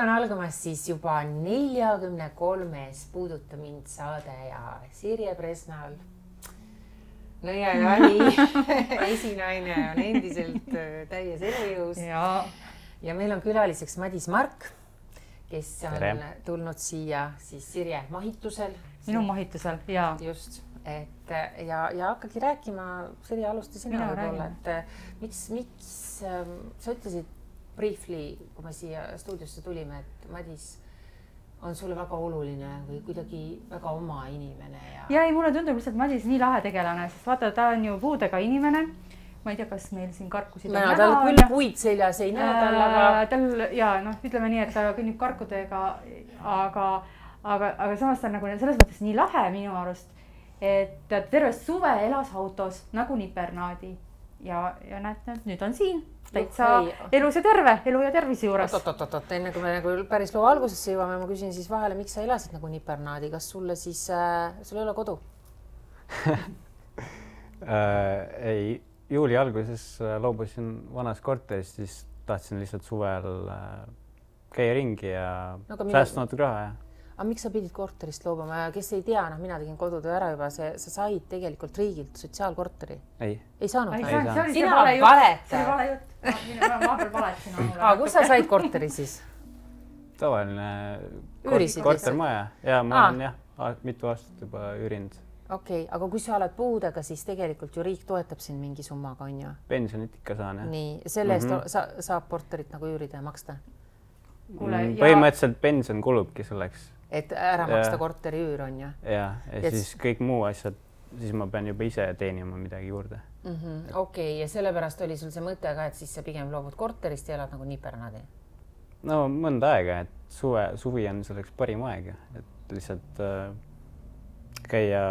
on algamas siis juba 43. Puuduta mind saade ja Sirje Presnal. No ja Jani esinaine on endiselt täies elujõus. Ja meil on külaliseks Madis Mark, kes on tulnud siia siis Sirje mahitusel. Minu mahitusel, jaa. Just. Ja hakkagi rääkima, Sirje alusta sina võib-olla, et miks sa ütlesid briefly, kui me siia stuudiosse tulime, et Madis on sulle väga oluline või kuidagi väga oma inimene. Ja ei, mulle tundub lihtsalt Madis nii lahe tegelane, sest vaata, ta on ju puudega inimene. Ma ei tea, kas meil siin karkusid on näha. Tal küll puid seljas ei näe tal, aga... ütleme nii, et ta kõnnib karkudega, aga samas ta on nagu selles mõttes nii lahe minu arust, et terve suve elas autos nagu nipernaadi. Ja näete, nüüd on siin täitsa elus ja terve, elu ja tervise juures. Enne kui me nagu päris loo algusesse jõuame, ma küsin siis vahele, miks sa elasid nagu nipernaadi, kas sulle siis, sul ei ole kodu? Ei, juuli alguses loobusin vanas korteris, siis tahtsin lihtsalt suvel käia ringi ja säästa natuke raha. Aga miks sa pidid korterist loobuma? Kes ei tea, mina tegin kodutöö ära juba, sa said tegelikult riigilt sotsiaalkorteri. Ei saanud? Sina valeta. See oli vale jutt. Ma peal valetasin mulle. Aga kus sa said korteri siis? Tavaline kortermaja. Ja ma olen mitu aastat juba üürinud. Okei, aga kui sa oled puudega, siis tegelikult ju riik toetab sind mingi summaga, on ju? Pensionit ikka saan, jah. Nii, selle eest saab korterit nagu üürida ja maksta? Põhimõtteliselt pension kulubki selleks. Et ära maksta korteri üür, on ju? Ja siis kõik muu asjad, siis ma pean juba ise teenima midagi juurde. Okei, ja sellepärast oli sul see mõte ka, et siis sa pigem loobud korterist ja elad nagu nipernaadi? No mõnda aega, et suvi on selleks parim aeg, et lihtsalt käia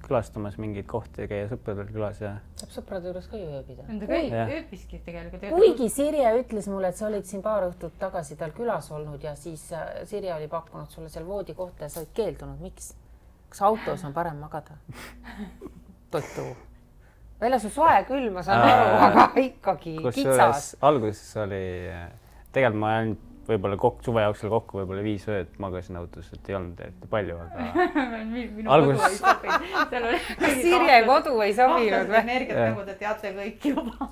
külastamas mingeid kohti ja käia sõpradel külas ja... Saab sõprade juures ka ju ööbida. Ööbiski tegelikult. Kuigi Sirje ütles mulle, et sa olid siin paar õhtut tagasi tal külas olnud ja siis Sirje oli pakkunud sulle seal voodi kohta ja sa olid keeldunud. Miks? Kas autos on parem magada? Totu. Väljas on soe küll, ma saan aru, aga ikkagi kitsas. Alguses oli... Tegelikult ma ainult võib-olla suve jooksul kokku võib-olla 5 ööd magasin autos, et ei olnud eriti palju, aga... Minu kodu ei sobinud. Sirje kodu ei sobinud või? Energiat nagu te teate kõik juba.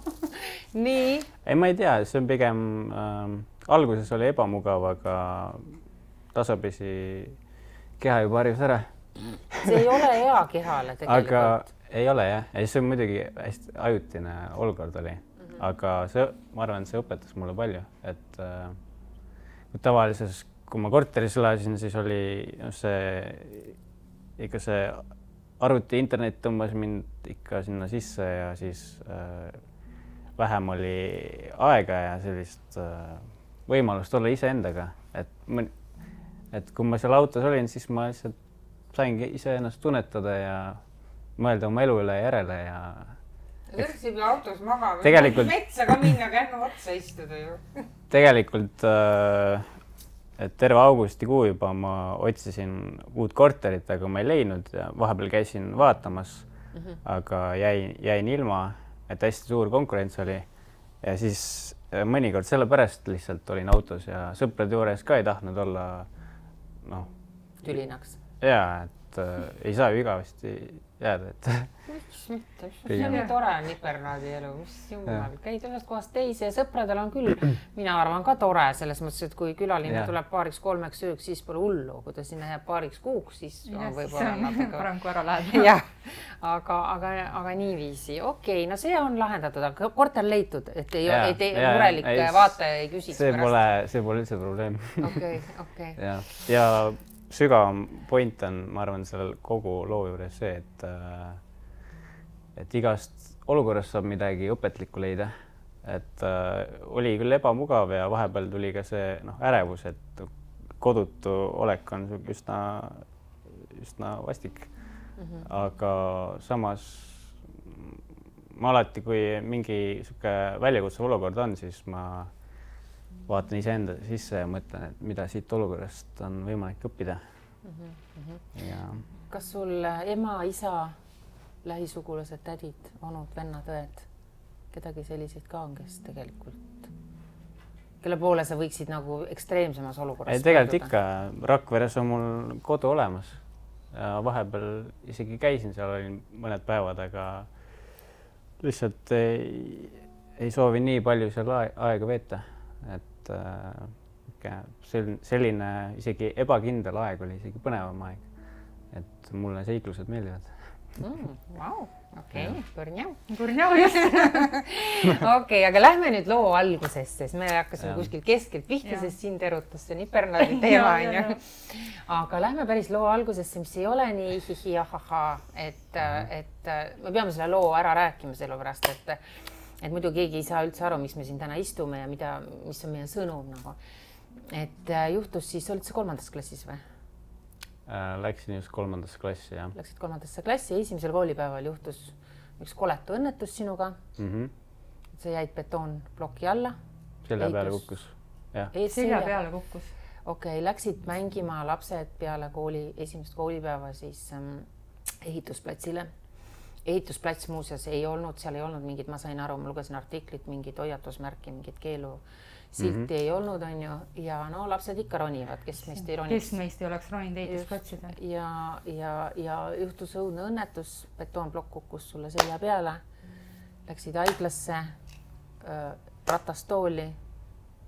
Nii? Ei, ma ei tea, see on pigem... Alguses oli ebamugav, aga tasapisi keha juba harjus ära. See ei ole hea kehale tegelikult. Aga ei ole, jah. See on muidugi hästi ajutine olukord oli. Aga ma arvan, see õpetas mulle palju, et... Tavalises, kui ma korteris elasin, siis oli ikka see arvuti internet tõmbas mind ikka sinna sisse ja siis vähem oli aega ja sellist võimalust olla iseendaga. Et kui ma seal autos olin, siis ma lihtsalt saingi iseennast tunnetada ja mõelda oma elu üle järele ja... Võrksib autos magama, metsa ka minna, kännu otsa istuda ju. Tegelikult terve augustikuu juba ma otsisin uut korterit, aga ma ei leidnud ja vahepeal käisin vaatamas, aga jäin ilma, et hästi suur konkurents oli. Ja siis mõnikord sellepärast lihtsalt olin autos ja sõprade juures ka ei tahtnud olla tülinaks. Jaa, et ei saa ju igavesti jääda, et... Miks mitte? See on nii tore nipernaadi elu, mis jumal. Käid ühest kohast teise ja sõpradel on küll, mina arvan ka tore, selles mõttes, et kui külaline tuleb 2-3 ööks, siis pole hullu. Kui ta sinna jääb 2 kuuks, siis on võib-olla natuke... Parem kui ära läheb. Jah, aga niiviisi. Okei, no see on lahendatud, aga korter leitud, et ei murelik vaataja ei küsiks pärast. See pole üldse probleem. Okei. Ja sügavam point on, ma arvan, sellel kogu loo juures see, et igast olukorrast saab midagi õpetlikku leida. Et oli küll ebamugav ja vahepeal tuli ka see ärevus, et kodutu olek on üsna vastik. Aga samas ma alati, kui mingi väljakutsuv olukord on, siis ma vaatan iseenda sisse ja mõtlen, et mida siit olukorrast on võimalik õppida. Kas sul ema, isa, lähisugulased, tädid, onud, vennad, õed, kedagi selliseid ka on, kes tegelikult kelle poole sa võiksid nagu ekstreemsemas olukorras? Tegelikult ikka, Rakveres on mul kodu olemas ja vahepeal isegi käisin seal, olin mõned päevad, aga lihtsalt ei soovi nii palju seal aega veeta, et selline isegi ebakindel aeg oli isegi põnevam aeg, et mulle seiklused meeldivad. Vau, okei, põrnjau. Põrnjau, just. Okei, aga lähme nüüd loo algusesse, sest me hakkasime kuskil keskelt pihta, sest sind erutas see nipernaadi teema, on ju. Aga lähme päris loo algusesse, mis ei ole nii hihi-ahaha, et me peame selle loo ära rääkima sellepärast, et muidu keegi ei saa üldse aru, miks me siin täna istume ja mis on meie sõnum nagu. Et juhtus siis, olid sa 3. klassis või? Läksin just 3. klassi, jah. Läksid 3. klassi ja esimesel koolipäeval juhtus üks koletu õnnetus sinuga. Sa jäid betoonploki alla. Selja peale kukkus. Selja peale kukkus. Okei, läksid mängima lapsed peale esimest koolipäeva siis ehitusplatsile. Ehitusplats muuseas ei olnud, seal ei olnud mingid, ma sain aru, ma lugesin artiklit, mingid hoiatusmärki, mingid keelusilti ei olnud, on ju, ja no lapsed ikka ronivad, kes meist ei roniks. Kes meist ei oleks roninud ehitusplatsida. Ja juhtus õudne õnnetus, betoonplokk kukkus sulle selja peale, läksid haiglasse, ratastooli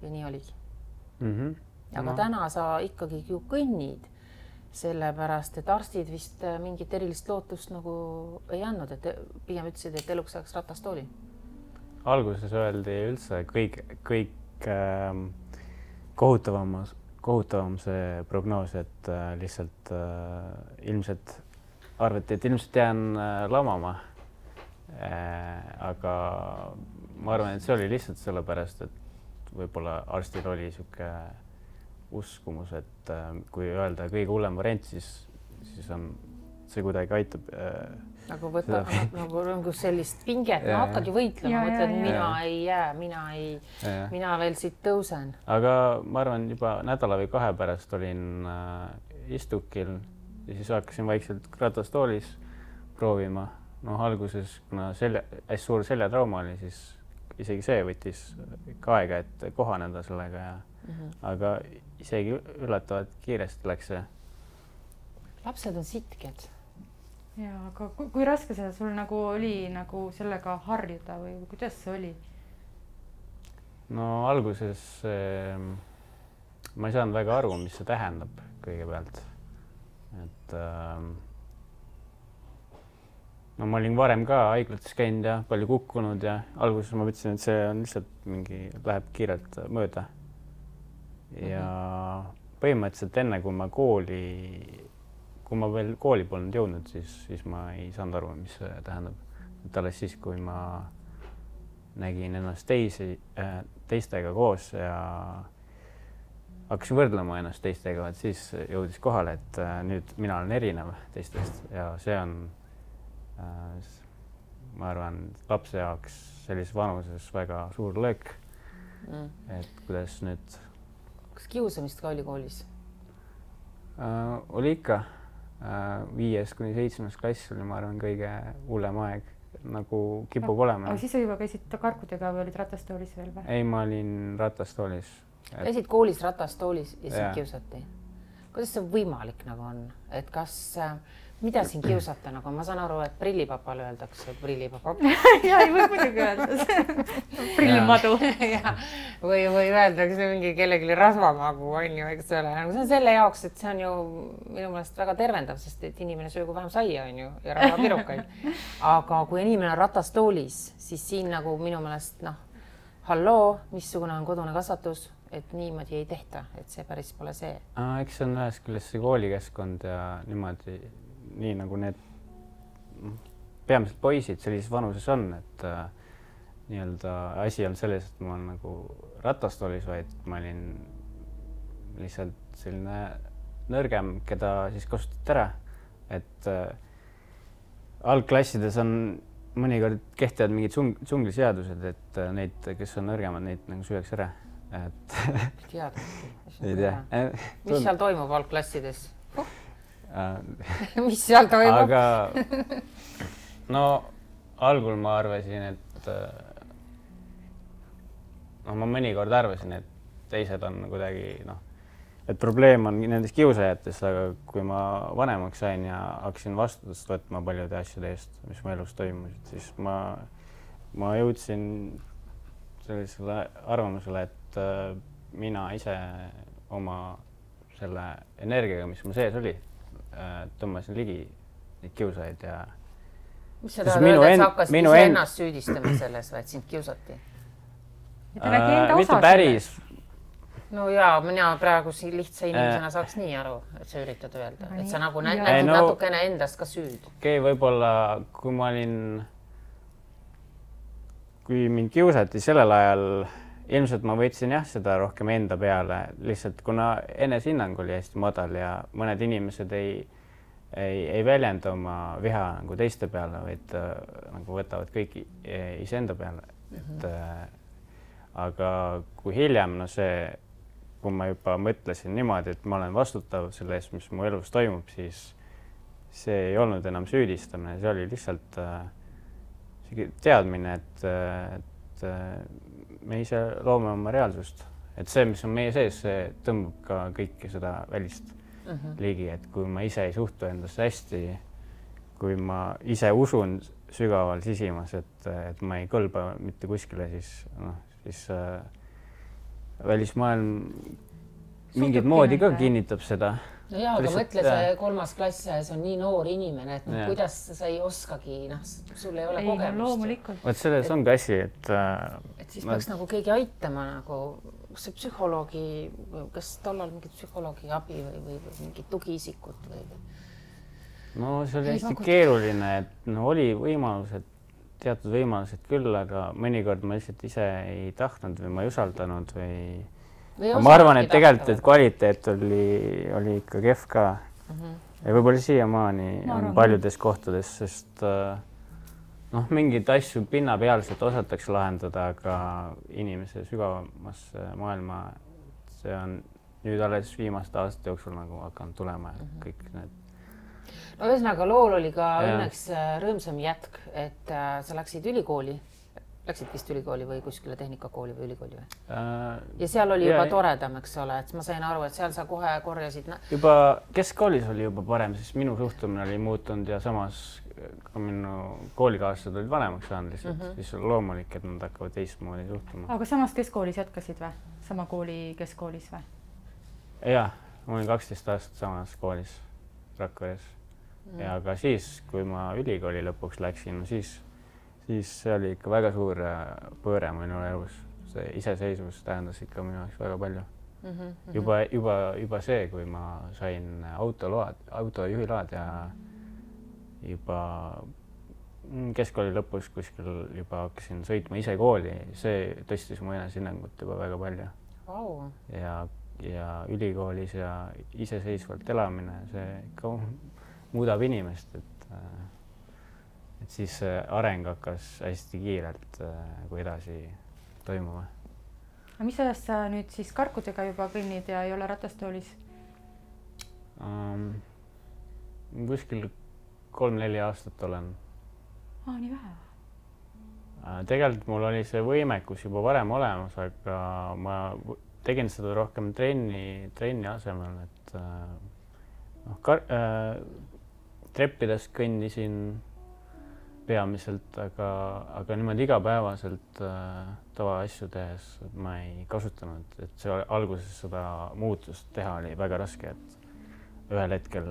ja nii oligi. Aga täna sa ikkagi ju kõnnid, sellepärast, et arstid vist mingit erilist lootust nagu ei andnud, et pigem ütlesid, et eluks saaks ratastooli. Alguses öeldi üldse kõik kohutavam see prognoos, et lihtsalt ilmselt arvati, et ilmselt jään lamama. Aga ma arvan, et see oli lihtsalt sellepärast, et võib-olla arstil oli siuke uskumus, et kui öelda kõige hullem variant, siis on see kuidagi aitab. Nagu võtta nagu sellist pinget, ma hakkad ju võitlema, mõtled, mina ei jää, mina veel siit tõusen. Aga ma arvan, juba nädala või 2 pärast olin istukil ja siis hakkasin vaikselt ratastoolis proovima. Alguses, kuna hästi suur seljatrauma oli, siis isegi see võttis ikka aega, et kohaneda sellega ja aga isegi üllatavalt kiiresti läks see. Lapsed on sitked. Ja, aga kui raske see sul nagu oli nagu sellega harjuda või kuidas see oli? No alguses ma ei saanud väga aru, mis see tähendab kõigepealt. Et no ma olin varem ka haiglates käinud ja palju kukkunud ja alguses ma mõtlesin, et see on lihtsalt läheb kiirelt mööda. Ja põhimõtteliselt enne, kui ma veel kooli polnud jõudnud, siis ma ei saanud aru, mis see tähendab. Et alles siis, kui ma nägin ennast teistega koos ja hakkasin võrdlema ennast teistega, et siis jõudis kohale, et nüüd mina olen erinev teistest ja see on, ma arvan, lapse jaoks sellises vanuses väga suur löök, et kuidas nüüd. Kas kiusamist ka oli koolis? Oli ikka. 5. kuni 7. klass oli, ma arvan, kõige hullem aeg, nagu kipub olema. Aga siis sa juba käisid karkudega või olid ratastoolis veel või? Ei, ma olin ratastoolis. Käisid koolis ratastoolis ja sind kiusati? Kuidas see võimalik nagu on? Et kas, mida siin kiusata nagu? Ma saan aru, et prillipapale öeldakse, et prillipapa. Ja, ei või muidugi öelda. Prillimadu. Või öeldakse mingi kellelegi rasvamagu, on ju, eks ole. See on selle jaoks, et see on ju minu meelest väga tervendav, sest et inimene söögu vähem saia, on ju, ja rahapirukaid. Aga kui inimene on ratastoolis, siis siin nagu minu meelest, halloo, missugune on kodune kasvatus, et niimoodi ei tehta, et see päris pole see. Eks see on ühest küljest see koolikeskkond ja niimoodi, nii nagu need peamiselt poisid sellises vanuses on, et nii-öelda asi on selles, et ma olen nagu ratastoolis, vaid ma olin lihtsalt selline nõrgem, keda siis kasutati ära, et algklassides on mõnikord kehtivad mingid džungliseadused, et neid, kes on nõrgemad, neid nagu süüakse ära. Ei tea. Mis seal toimub algklassides? Mis seal toimub? Aga no algul ma arvasin, et ma mõnikord arvasin, et teised on kuidagi et probleem on nendes kiusajates, aga kui ma vanemaks sain ja hakkasin vastutust võtma paljude asjade eest, mis mu elus toimusid, siis ma jõudsin sellisele arvamusele, et mina ise oma selle energiaga, mis mu sees oli, tõmbasin ligi neid kiusajaid ja mis sa tahad öelda, et sa hakkasid ise ennast süüdistama selles või, et sind kiusati? Mitte päris. No jaa, mina praegu siin lihtsa inimesena saaks nii aru, et sa üritad öelda, et sa nagu nägid natukene endast ka süüd. Okei, võib-olla kui mind kiusati sellel ajal, ilmselt ma võtsin jah seda rohkem enda peale, lihtsalt kuna enesehinnang oli hästi madal ja mõned inimesed ei väljenda oma viha nagu teiste peale, vaid nagu võtavad kõik iseenda peale. Aga kui hiljem, kui ma juba mõtlesin niimoodi, et ma olen vastutav selle eest, mis mu elus toimub, siis see ei olnud enam süüdistamine, see oli lihtsalt teadmine, et me ise loome oma reaalsust. Et see, mis on meie sees, see tõmbab ka kõike seda välist ligi, et kui ma ise ei suhtu endasse hästi, kui ma ise usun sügaval sisimas, et ma ei kõlba mitte kuskile, siis välismaailm mingit moodi ka kinnitab seda. No jaa, aga mõtle see 3. klass ja see on nii noor inimene, et kuidas sa ei oskagi, sul ei ole kogemust. Võt selles on ka asi, et siis peaks nagu keegi aitama, kas see psühholoogi, kas tollal mingit psühholoogi abi või mingit tugiisikut või? No see oli hästi keeruline, et oli võimalused, teatud võimalused küll, aga mõnikord ma lihtsalt ise ei tahtnud või ma ei usaldanud või ma arvan, et tegelikult, et kvaliteet oli ikka kehv ka. Ja võib-olla siiamaani on paljudes kohtades, sest mingid asju pinnapealselt osatakse lahendada, aga inimese sügavamasse maailma, see on nüüd alles viimaste aastate jooksul nagu hakanud tulema kõik need. No ühesõnaga, lool oli ka õnneks rõõmsam jätk, et sa läksid ülikooli. Läksid vist ülikooli või kuskile tehnikakooli või ülikooli või? Ja seal oli juba toredam, eks ole, et ma sain aru, et seal sa kohe korjasid... Juba keskkoolis oli juba parem, siis minu suhtumine oli muutunud ja samas ka minu koolikaaslased olid vanemaks saanud lihtsalt, siis on loomulik, et nad hakkavad teistmoodi suhtuma. Aga samas keskkoolis jätkasid või? Sama kooli keskkoolis või? Jah, ma olin 12 aastat samas koolis Rakveres ja ka siis, kui ma ülikooli lõpuks läksin, siis see oli ikka väga suur pööre minu elus. See iseseisvus tähendas ikka minu jaoks väga palju. Juba see, kui ma sain autojuhiload ja juba keskkooli lõpus kuskil juba hakkasin sõitma ise kooli, see tõstis mu enesehinnangut juba väga palju. Ja ülikoolis ja iseseisvalt elamine, see ikka muudab inimest, et siis areng hakkas hästi kiirelt edasi toimuma. Aga mis ajast sa nüüd siis karkudega juba kõnnid ja ei ole ratastoolis? Kuskil 3-4 aastat olen. Nii vähe? Tegelikult mul oli see võimekus juba varem olemas, aga ma tegin seda rohkem trenni asemel, et treppidest kõndisin peamiselt, aga niimoodi igapäevaselt tavaasju tehes ma ei kasutanud, et see alguses seda muutust teha oli väga raske, et ühel hetkel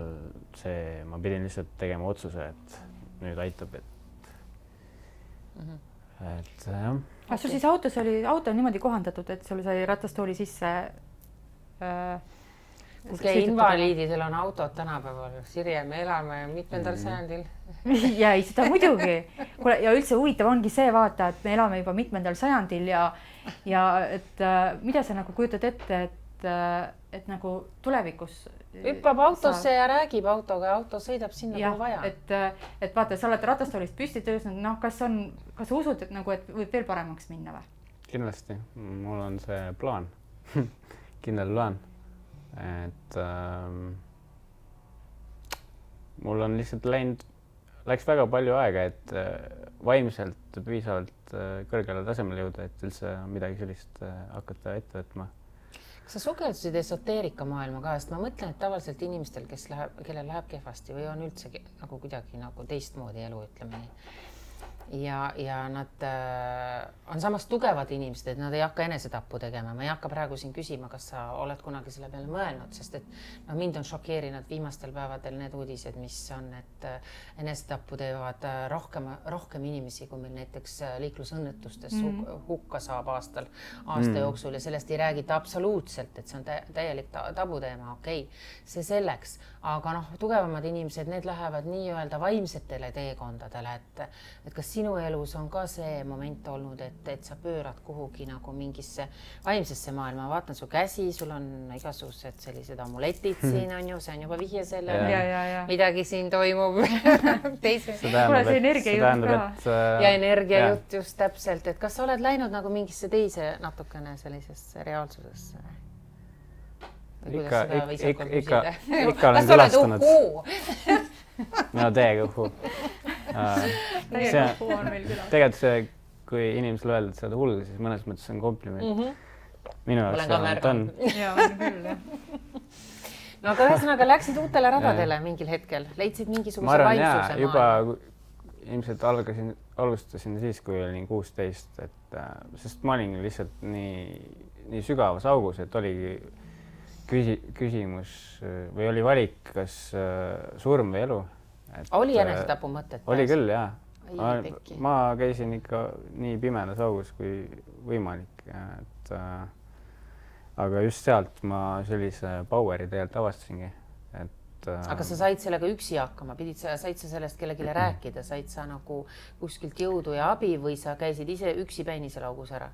ma pidin lihtsalt tegema otsuse, et nüüd aitab, et jah. Aga sul siis auto on niimoodi kohandatud, et sul sai ratastooli sisse invaliididel on autod tänapäeval. Sirje, me elame mitmendal sajandil. Ja ei, seda muidugi. Ja üldse huvitav ongi see vaata, et me elame juba mitmendal sajandil ja et mida sa nagu kujutad ette, et nagu tulevikus hüppab autosse ja räägib autoga ja auto sõidab sinna, kui vaja. Et vaata, sa oled ratastoolist püsti töösnud, kas sa usud, et võib veel paremaks minna või? Kindlasti. Mul on see plaan. Kindel plaan. Et mul on lihtsalt läks väga palju aega, et vaimselt piisavalt kõrgele tasemele jõuda, et üldse midagi sellist hakata ette võtma. sa sukeldusid esoteerika maailma ka, sest ma mõtlen, et tavaliselt inimestel, kellel läheb kehvasti või on üldse nagu kuidagi nagu teistmoodi elu, ütleme nii. Ja nad on samas tugevad inimesed, et nad ei hakka enesetappu tegema. Ma ei hakka praegu siin küsima, kas sa oled kunagi selle peale mõelnud, sest et mind on šokeerinud viimastel päevadel need uudised, mis on, et enesetappu teevad rohkem inimesi, kui meil näiteks liiklusõnnetustes hukka saab aasta jooksul ja sellest ei räägita absoluutselt, et see on täielik tabuteema, okei, see selleks. Aga tugevamad inimesed, need lähevad nii-öelda vaimsetele teekondadele, et kas sinu elus on ka see moment olnud, et sa pöörad kuhugi nagu mingisse vaimsesse maailma, vaatan su käsi, sul on igasugused sellised amuletid siin on ju, see on juba vihje sellele, midagi siin toimub. See energiajutt ka. Ja energiajutt just täpselt, et kas sa oled läinud nagu mingisse teise natukene sellisesse reaalsusesse? Ikka olen külastanud. Mina täiega uhku. Tegelikult see, kui inimesele öelda, et sa oled hull, siis mõnes mõttes on kompliment. Minu jaoks on. Jaa, on küll, jah. No aga ühesõnaga läksid uutele radadele mingil hetkel, leidsid mingisuguse vaimsuse maailma. Juba ilmselt alustasin siis, kui olin 16, sest ma olin lihtsalt nii sügavas augus, et oligi küsimus või oli valik, kas surm või elu. Oli enesetapu mõtet? Oli küll, jah. Ma käisin ikka nii pimedas augus kui võimalik. Aga just sealt ma sellise poweri tegelikult avastasingi. Aga sa said sellega üksi hakkama, said sa sellest kellelegi rääkida, said sa nagu kuskilt jõudu ja abi või sa käisid ise üksi päini seal augus ära?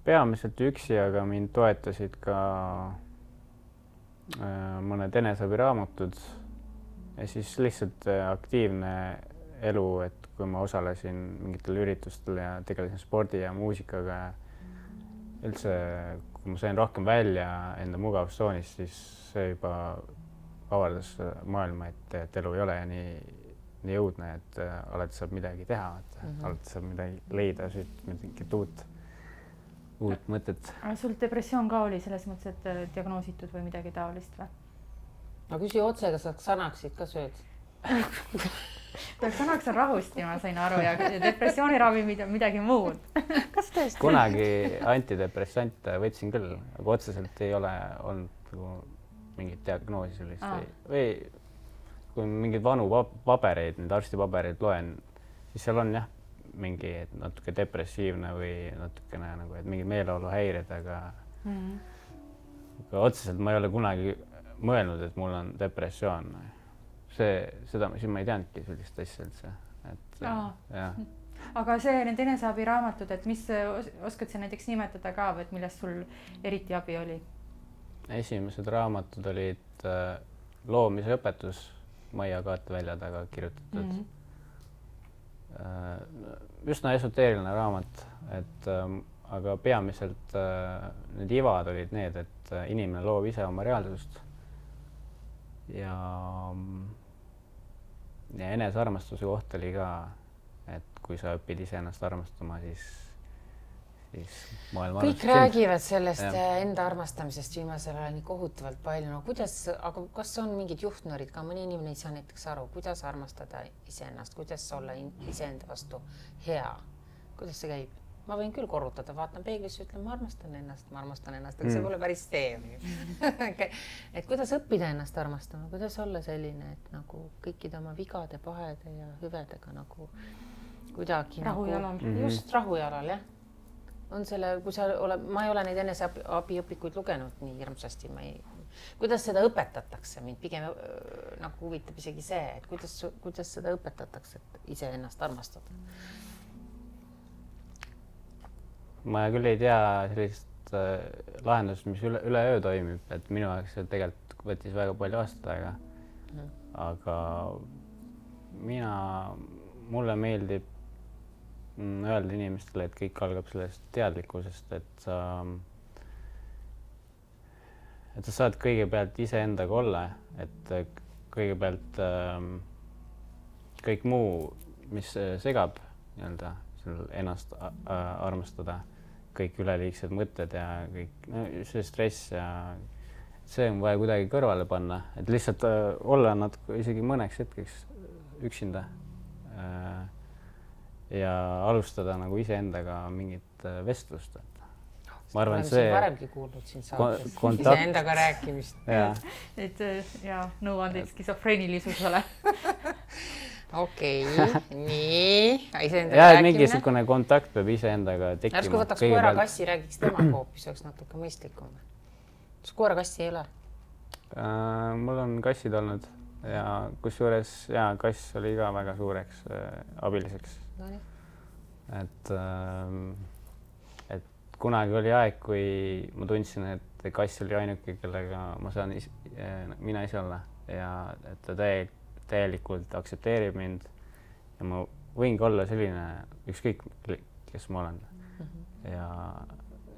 Peamiselt üksi, aga mind toetasid ka mõned eneseabiraamatud ja siis lihtsalt aktiivne elu, et kui ma osalesin mingitel üritustel ja tegelesin spordi ja muusikaga ja üldse, kui ma sain rohkem välja enda mugavustsoonist, siis see juba avardas maailma, et elu ei ole nii jõudne, et alati saab midagi teha, alati saab midagi leida, mingit uut mõtet. Sul depressioon ka oli selles mõttes, et diagnoositud või midagi taolist või? No küsi otse, kas sa Xanaxit ka sööd? Xanax on rahusti, ma sain aru, ja depressiooniravi midagi muud. Kas tõesti? Kunagi antidepressante võtsin küll, aga otseselt ei ole olnud mingit diagnoosi sellist. Või kui mingid vanu pabereid, need arstipabereid loen, siis seal on jah, mingi natuke depressiivne või natukene nagu, et mingi meeleoluhäired, aga otseselt ma ei ole kunagi mõelnud, et mul on depressioon. Seda ma ei teadnudki sellist asja üldse. Aga see need eneseabiraamatud, et mis oskad sa näiteks nimetada ka, et millest sul eriti abi oli? Esimesed raamatud olid loomise õpetus Maia Kaatevälja taga kirjutatud. Üsna esoteeriline raamat, aga peamiselt need ivad olid need, et inimene loob ise oma reaalsust ja enesearmastuse koht oli ka, et kui sa õpid ise ennast armastama, siis maailma kõik räägivad sellest enda armastamisest viimasel ajal nii kohutavalt palju. No aga kas on mingid juhtnöörid ka? Mõni inimene ei saa näiteks aru, kuidas armastada iseennast, kuidas olla iseenda vastu hea. Kuidas see käib? Ma võin küll korrutada, vaatan peeglisse, ütlen, ma armastan ennast, aga see pole päris see. Et kuidas õppida ennast armastama, kuidas olla selline, et nagu kõikide oma vigade, pahede ja hüvedega nagu kuidagi rahujalal. Just rahujalal, jah. On selle, kui ma ei ole neid eneseabiõpikuid lugenud nii hirmsasti, kuidas seda õpetatakse, mind pigem nagu huvitab isegi see, et kuidas seda õpetatakse, et ise ennast armastada. Ma küll ei tea sellist lahendust, mis üle öö toimib, et minu aeg see tegelikult võttis väga palju aastat aega. Aga mulle meeldib öelda inimestele, et kõik algab sellest teadlikkusest, et sa saad kõigepealt iseendaga olla, et kõigepealt kõik muu, mis segab ennast armastada, kõik üleliigsed mõtted ja kõik see stress ja see on vaja kuidagi kõrvale panna, et lihtsalt olla natuke isegi mõneks hetkeks üksinda ja alustada nagu iseendaga mingit vestlust. Ma arvan, see varemgi kuulnud siin saates iseendaga rääkimist. Et ja nõuandeid skisofreenilisusele. Okei, nii. Ja, et mingisugune kontakt peab iseendaga tekkima. Ärsku võtaks koera kassi, räägiks tema hoopis, oleks natuke mõistlikum. Koera kassi ei ole? Mul on kassid olnud ja kusjuures kass oli ka väga suureks abiliseks. Et kunagi oli aeg, kui ma tundsin, et kass oli ainuke, kellega ma saan mina ise olla ja et ta täielikult aktsepteerib mind ja ma võingi olla selline ükskõik, kes ma olen.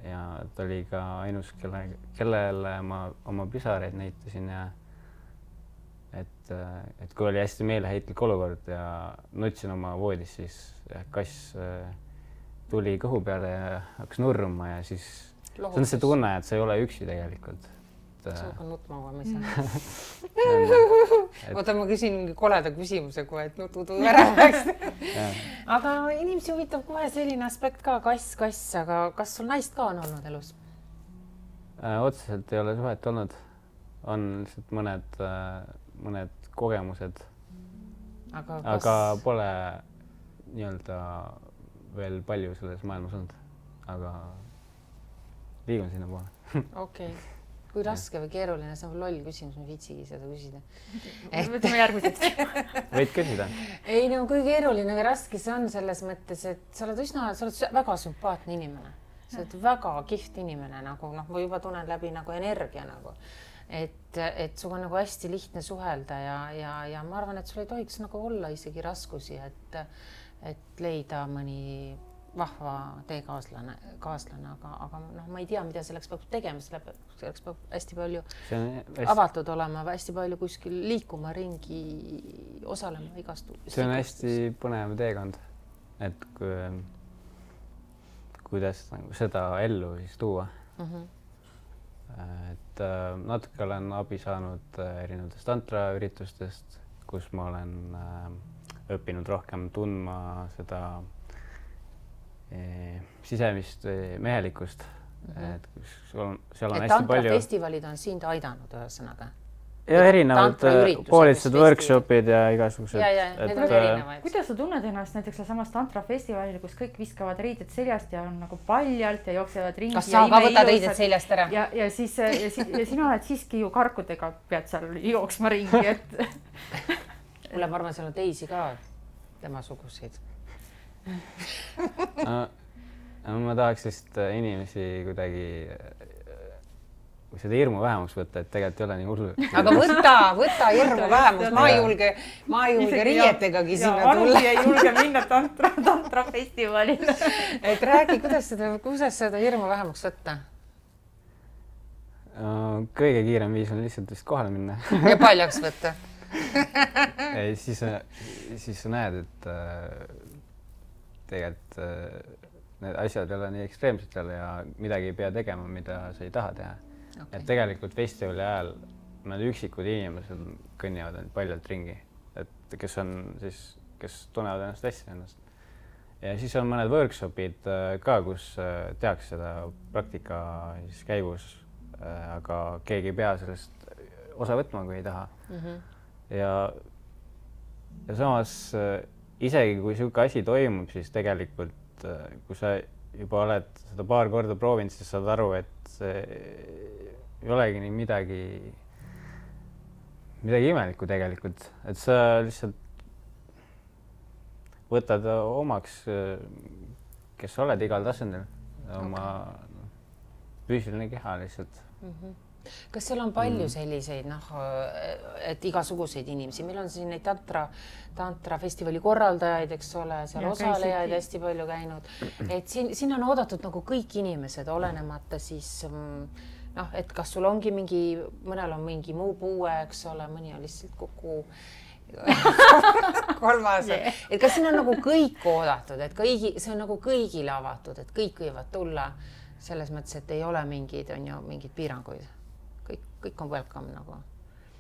Ja ta oli ka ainus, kellele ma oma pisareid näitasin ja et kui oli hästi meeleheitlik olukord ja nutsin oma voodis, siis kass tuli kõhu peale ja hakkas nurruma ja siis see on see tunne, et sa ei ole üksi tegelikult. Suuga nutma ma ei saa. Oota, ma küsin mingi koleda küsimuse kohe, et nutudu ära läks. Aga inimesi huvitab kohe selline aspekt ka, kass, aga kas sul naist ka on olnud elus? Otseselt ei ole suhet olnud. On lihtsalt mõned kogemused. Aga pole nii-öelda veel palju selles maailmas olnud, aga liigun sinna poole. Okei. Kui raske või keeruline, see on loll küsimus, ma viitsigi seda küsida. Võtame järgmiseks. Võid küsida? Ei, no kui keeruline või raske see on selles mõttes, et sa oled väga sümpaatne inimene. Sa oled väga kihvt inimene, nagu ma juba tunnen läbi nagu energia nagu. Et sul on nagu hästi lihtne suhelda ja ma arvan, et sul ei tohiks nagu olla isegi raskusi, et leida mõni vahva teekaaslane, aga ma ei tea, mida selleks peab tegema, selleks peab hästi palju avatud olema, hästi palju kuskil liikuma ringi, osalema igast. See on hästi põnev teekond, et kuidas seda ellu siis tuua. Et natuke olen abi saanud erinevatest tantraüritustest, kus ma olen õppinud rohkem tundma seda sisemist mehelikkust. Et seal on hästi palju... Tantrafestivalid on sind aidanud ühesõnaga? Ja erinevad koolitused, workshopid ja igasugused. Need on erinevaid. Kuidas sa tunned ennast näiteks samas tantrafestivalil, kus kõik viskavad riided seljast ja on nagu paljalt ja jooksevad ringi? Kas sa ka võtad riided seljast ära? Ja sina oled siiski ju karkudega pead seal jooksma ringi, et... Mulle ma arvan, seal on teisi ka tema suguseid. Ma tahaks lihtsalt inimesi kuidagi seda hirmu vähemaks võtta, et tegelikult ei ole nii hullu. Aga võta hirmu vähemaks. Ma ei julge riietegagi sinna tulla. Anugi ei julge minna tantrafestivalile. Et räägi, kuidas seda hirmu vähemaks võtta? Kõige kiirem viis on lihtsalt vist kohale minna. Ja paljaks võtta. Siis sa näed, et tegelikult need asjad ei ole nii ekstreemsed seal ja midagi ei pea tegema, mida sa ei taha teha. Et tegelikult festivali ajal need üksikud inimesed kõnnivad paljalt ringi, et kes tunnevad ennast hästi ennast. Ja siis on mõned workshopid ka, kus tehakse seda praktika käigus, aga keegi ei pea sellest osa võtma, kui ei taha. Ja samas isegi kui siuke asi toimub, siis tegelikult kui sa juba oled seda paar korda proovinud, siis saad aru, et see ei olegi nii midagi imelikku tegelikult, et sa lihtsalt võtad omaks, kes sa oled igal tasandil, oma füüsiline keha lihtsalt. Kas seal on palju selliseid, et igasuguseid inimesi? Meil on siin neid tantrafestivali korraldajaid, eks ole, seal osalejaid hästi palju käinud. Et siin on oodatud nagu kõik inimesed, olenemata siis, et kas sul ongi mõnel on mingi muu puue, eks ole, mõni on lihtsalt kogu kolmas et kas siin on nagu kõik oodatud, et see on nagu kõigile avatud, et kõik võivad tulla selles mõttes, et ei ole mingid piiranguid. Kõik on welcome nagu.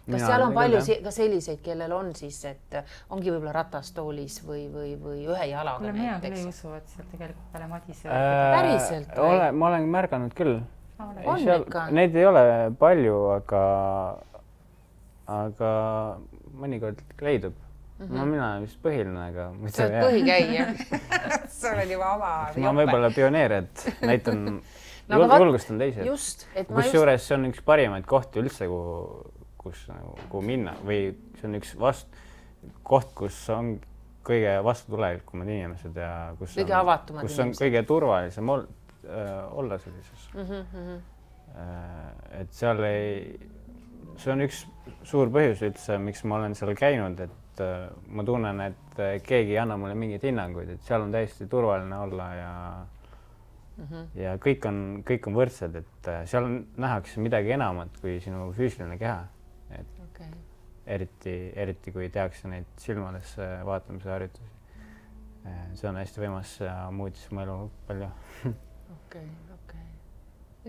Kas seal on palju ka selliseid, kellel on siis, et ongi võib-olla ratastoolis või ühe jalaga näiteks? Mina küll ei usu, et seal tegelikult peale Madise päriselt või? Ma olen märganud küll. Ikka. Neid ei ole palju, aga mõnikord leidub. Mina olen vist põhiline, aga... Sa oled põhikäija. Sa oled juba oma jope. Ma võib-olla pioneer, et näitan julgustan teised. Just. Kus juures see on üks parimaid kohti üldse, kuhu minna või see on üks koht, kus on kõige vastutulelikumad inimesed ja kus on kõige turvalisem olla sellises. Et seal see on üks suur põhjus üldse, miks ma olen seal käinud, et ma tunnen, et keegi ei anna mulle mingeid hinnanguid, et seal on täiesti turvaline olla ja kõik on võrdsed, et seal nähakse midagi enamat kui sinu füüsiline keha. Eriti kui tehakse neid silmadesse vaatamise harjutusi. See on hästi võimas ja muutis mu elu palju. Okei.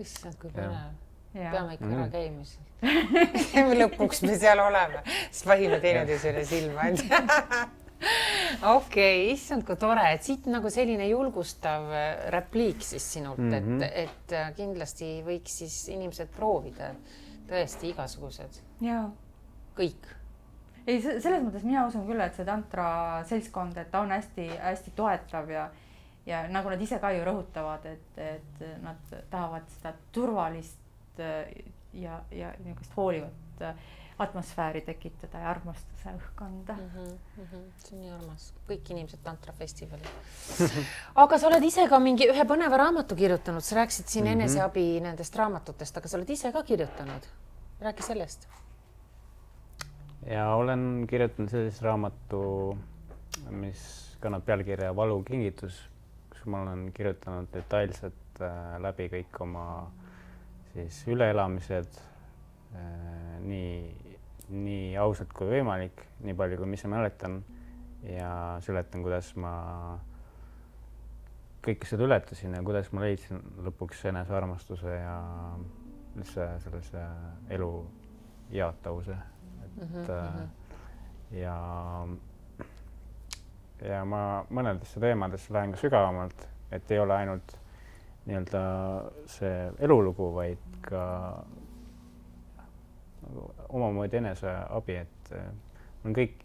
Issand, kui põnev. Peame ikka ära käimas. Lõpuks me seal oleme. Siis vahime teineteisele silma. Okei, issand, kui tore. Et siit nagu selline julgustav repliik siis sinult, et kindlasti võiks siis inimesed proovida tõesti igasugused. Jaa. Kõik. Ei, selles mõttes mina usun küll, et see tantra seltskond, et ta on hästi toetav ja nagu nad ise ka ju rõhutavad, et nad tahavad seda turvalist ja niisugust hoolivat atmosfääri tekitada ja armastuse õhkkonda. See on nii armas. Kõik inimesed tantrafestivalil. Aga sa oled ise ka ühe põneva raamatu kirjutanud. Sa rääkisid siin eneseabi nendest raamatutest, aga sa oled ise ka kirjutanud. Räägi sellest. Ja olen kirjutanud sellist raamatu, mis kannab pealkirja Valukingitus, kus ma olen kirjutanud detailselt läbi kõik oma siis üleelamised nii ausalt kui võimalik, nii palju kui mis ma mäletan ja seletan, kuidas ma kõike seda ületasin ja kuidas ma leidsin lõpuks enesearmastuse ja üldse sellise elu jaatavuse. Ja ma mõnedesse teemadesse lähen ka sügavamalt, et ei ole ainult nii-öelda see elulugu, vaid ka omamoodi eneseabi, et olen kõik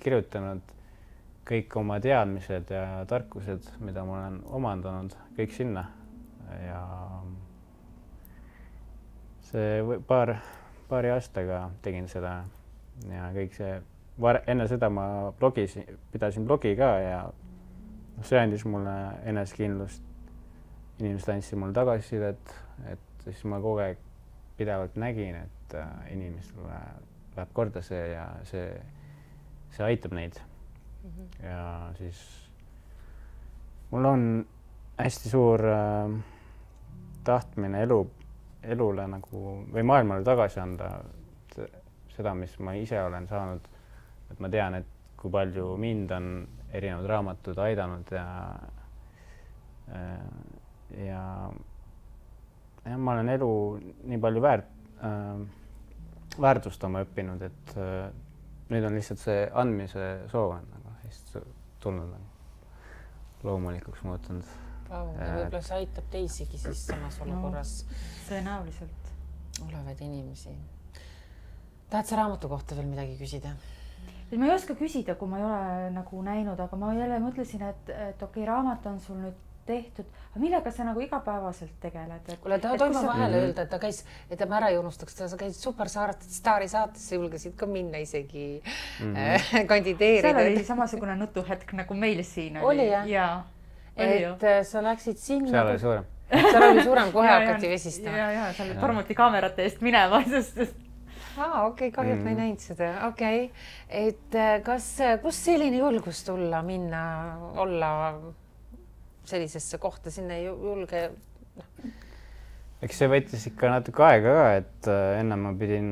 kirjutanud kõik oma teadmised ja tarkused, mida ma olen omandanud, kõik sinna ja see paari aastaga tegin seda ja kõik see enne seda ma pidasin blogi ka ja see andis mulle enesekindlust. Inimesed andsid mulle tagasisidet, et siis ma kogu aeg pidevalt nägin, et inimestele läheb korda see ja see aitab neid. Ja siis mul on hästi suur tahtmine elule nagu või maailmale tagasi anda seda, mis ma ise olen saanud, et ma tean, et kui palju mind on erinevad raamatud aidanud ja ma olen elu nii palju väärtustama õppinud, et nüüd on lihtsalt see andmise soov on nagu hästi tulnud loomulikuks muutunud. Võib-olla see aitab teisigi siis samas olukorras tõenäoliselt olevaid inimesi. Tahad sa raamatu kohta veel midagi küsida? Ma ei oska küsida, kui ma ei ole nagu näinud, aga ma jälle mõtlesin, et okei, raamat on sul nüüd tehtud, aga millega sa nagu igapäevaselt tegeled? Kuule, ta toima vahele öelda, et ta käis, et ma ära ei unustaks, sa käisid Superstaari saatesse, julgesid ka minna isegi kandideerida. Seal oli samasugune nutuhetk nagu meil siin. Oli jah? Jaa. Et sa läksid sinna. Seal oli suurem. Seal oli suurem, kohe hakati vesistama. Jaa, seal tormuti kaamerate eest minema, sest Okei, kahjult ma ei näinud seda. Okei, et kus selline julgus tulla, minna, olla sellisesse kohta, sinna ei julge? Eks see võttis ikka natuke aega ka, et enne ma pidin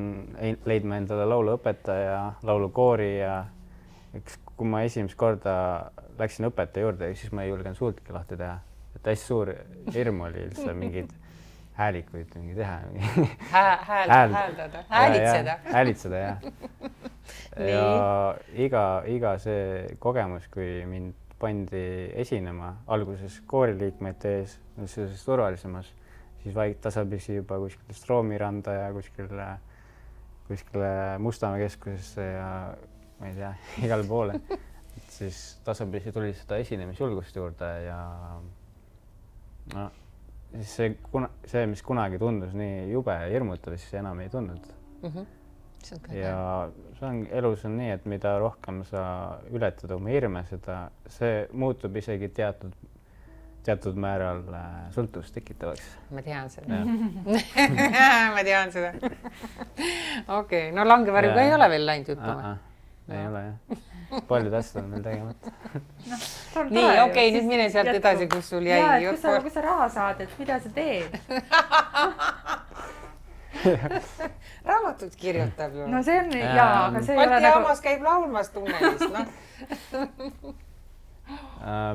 leidma endale lauluõpetaja, laulukoori ja eks kui ma esimest korda läksin õpetaja juurde, siis ma ei julgenud suultki lahti teha. Et hästi suur hirm oli üldse mingid häälikuid mingi teha. Hääldada, häälitseda. Häälitseda, jah. Ja iga see kogemus, kui mind pandi esinema alguses kooriliikmete ees, sellises turvalisemas, siis tasapisi juba kuskil Stroomiranda ja kuskile Mustamäe keskusesse ja ma ei tea, igale poole. Et siis tasapisi tuli seda esinemisjulgust juurde ja no, siis see, mis kunagi tundus nii jube ja hirmutav, siis enam ei tundnud. Ja elus on nii, et mida rohkem sa ületad oma hirme, see muutub isegi teatud määral sõltuvust tekitavaks. Ma tean seda. Ma tean seda. Okei, no Langevarjuga ei ole veel läinud jutuma. Ei ole, jah. Paljud asjad on veel tegemata. Nii, okei, nüüd mine sealt edasi, kus sul jäi. Ja, kui sa raha saad, et mida sa teed? Raamatut kirjutab ju. No see on, jaa, aga see ei ole Balti jaamas käib laulmas tunnelis, noh.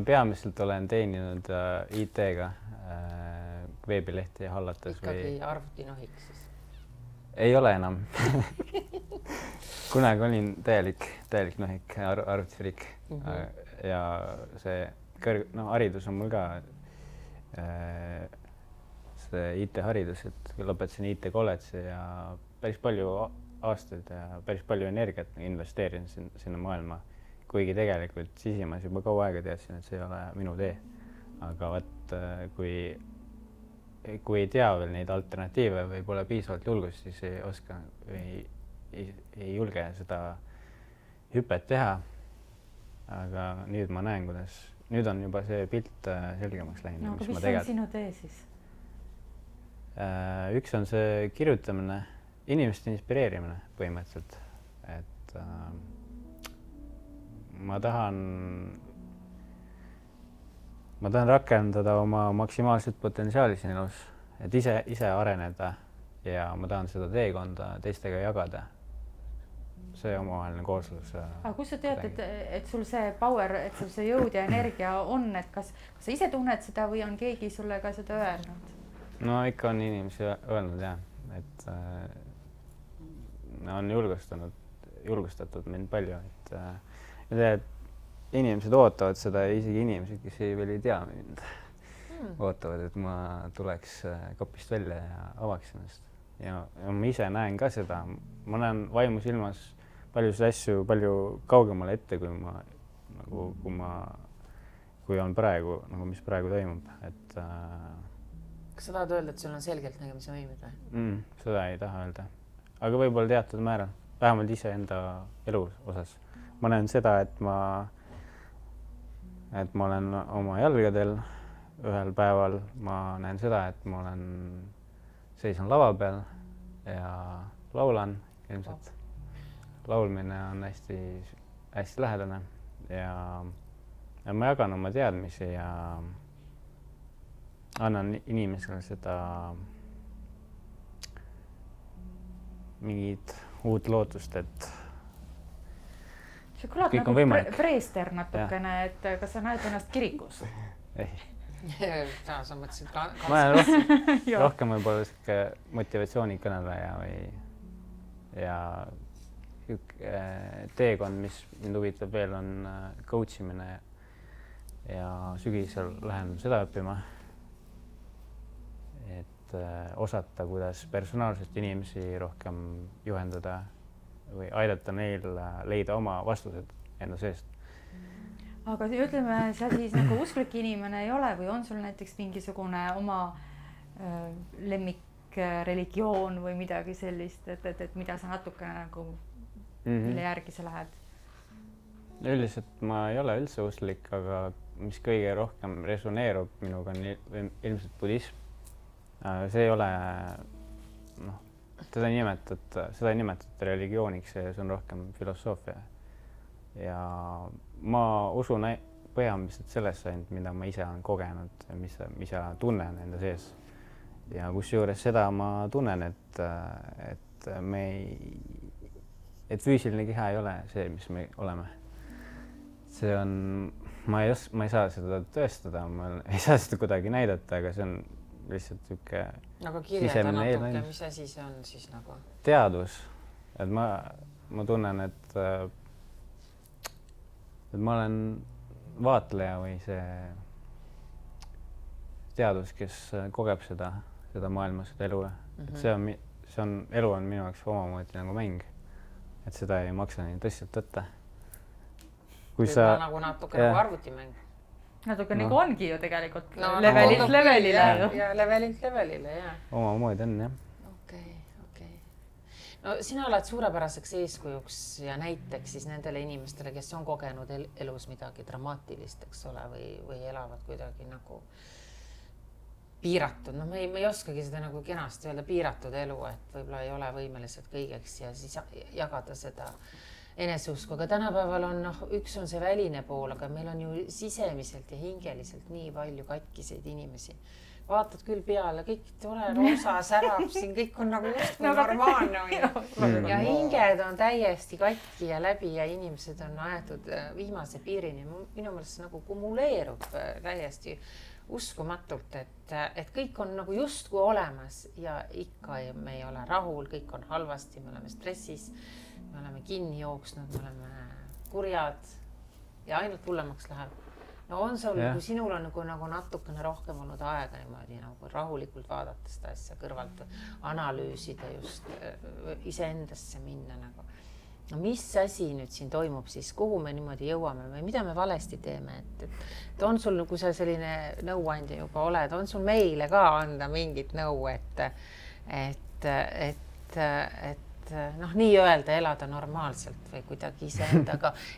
Peamiselt olen teeninud IT-ga veebilehti hallates. Ikkagi arvutinohik siis? Ei ole enam. Kunagi olin täielik nohik, arvutifriik. Ja see haridus on mul ka see IT-haridus, et lõpetasin IT-kolledži ja päris palju aastaid ja päris palju energiat investeerin sinna maailma. Kuigi tegelikult sisimas juba kaua aega teadsin, et see ei ole minu tee. Aga võt, kui ei tea veel neid alternatiive või pole piisavalt julgust, siis ei oska või ei julge seda hüpet teha. Aga nüüd ma näen, kuidas nüüd on juba see pilt selgemaks läinud. No, aga mis on sinu tee siis? Üks on see kirjutamine, inimeste inspireerimine põhimõtteliselt. Et ma tahan rakendada oma maksimaalset potentsiaali siin elus, et ise areneda ja ma tahan seda teekonda teistega jagada. See omavaheline kooslus. Aga kus sa tead, et sul see power, et sul see jõud ja energia on, et kas sa ise tunned seda või on keegi sulle ka seda öelnud? No ikka on inimesi öelnud jah, et on julgustatud mind palju, et inimesed ootavad seda ja isegi inimesed, kes veel ei tea mind, ootavad, et ma tuleks kapist välja ja avaks ennast. Ja ma ise näen ka seda, ma näen vaimus ilmas paljusid asju palju kaugemale ette, kui on praegu, nagu mis praegu toimub, et kas sa tahad öelda, et sul on selgelt nägemise võimed või? Seda ei taha öelda. Aga võib-olla teatud määral, vähemalt ise enda elu osas. Ma näen seda, et ma olen oma jalgadel ühel päeval. Ma näen seda, et ma seisan lava peal ja laulan ilmselt. Laulmine on hästi lähedane ja ma jagan oma teadmisi ja annan inimesele seda mingit uut lootust, et see kõlab kõik nagu preester natukene, et kas sa näed ennast kirikus? Ei. Sa mõtlesid ma olen rohkem võib-olla selline motivatsioonikõneleja ja teekond, mis mind huvitab veel, on coachimine ja sügisel lähen seda õppima. Et osata, kuidas personaalselt inimesi rohkem juhendada või aidata neil leida oma vastused enda seest. Aga ütleme, sa siis nagu usklik inimene ei ole või on sul näiteks mingisugune oma lemmikreligioon või midagi sellist, et mida sa natukene nagu mille järgi sa lähed? Üldiselt ma ei ole üldse usklik, aga mis kõige rohkem resoneerub minuga on ilmselt budism. See ei ole, seda ei nimetada religiooniks, see on rohkem filosoofia. Ja ma usun põhimõtteliselt sellesse, mida ma ise olen kogenud, mis ma tunnen enda sees. Ja kusjuures seda ma tunnen, et füüsiline keha ei ole see, mis me oleme. see on, ma ei saa seda tõestada, ma ei saa seda kuidagi näidata, aga see on lihtsalt niisugune aga kirjelda natuke, mis asi see on siis nagu? Teadvus, et ma tunnen, et ma olen vaatleja või see teadvus, kes kogeb seda maailma, seda elu. Et see on, elu on minu jaoks omamoodi nagu mäng, et seda ei maksa nii tõsiselt võtta. Kui sa... nagu natuke nagu arvutimäng. Natuke nagu ongi ju tegelikult levelilt levelile. Ja levelilt levelile, jah. Omamoodi on, jah. Okei. No sina oled suurepäraseks eeskujuks ja näiteks siis nendele inimestele, kes on kogenud elus midagi dramaatilist, eks ole, või elavad kuidagi nagu piiratud. No me ei oskagi seda nagu kenasti öelda piiratud elu, et võib-olla ei ole võimelised kõigeks ja siis jagada seda eneseusku, aga tänapäeval on, üks on see väline pool, aga meil on ju sisemiselt ja hingeliselt nii palju katkiseid inimesi. Vaatad küll peale, kõik tore roosa särab siin, kõik on nagu just normaalne. Ja hinged on täiesti katki ja läbi ja inimesed on aetud viimase piirini. Minu meelest nagu kumuleerub täiesti uskumatult, et kõik on nagu justkui olemas ja ikka me ei ole rahul, kõik on halvasti, me oleme stressis. Me oleme kinni jooksnud, me oleme kurjad ja ainult hullemaks läheb. No on sul, kui sinul on nagu natukene rohkem olnud aega niimoodi nagu rahulikult vaadata seda asja kõrvalt, analüüsida just iseendasse minna nagu. No mis asi nüüd siin toimub siis, kuhu me niimoodi jõuame või mida me valesti teeme? Et on sul, kui sa selline nõuandja juba oled, on sul meile ka anda mingit nõu, et nii öelda elada normaalselt või kuidagi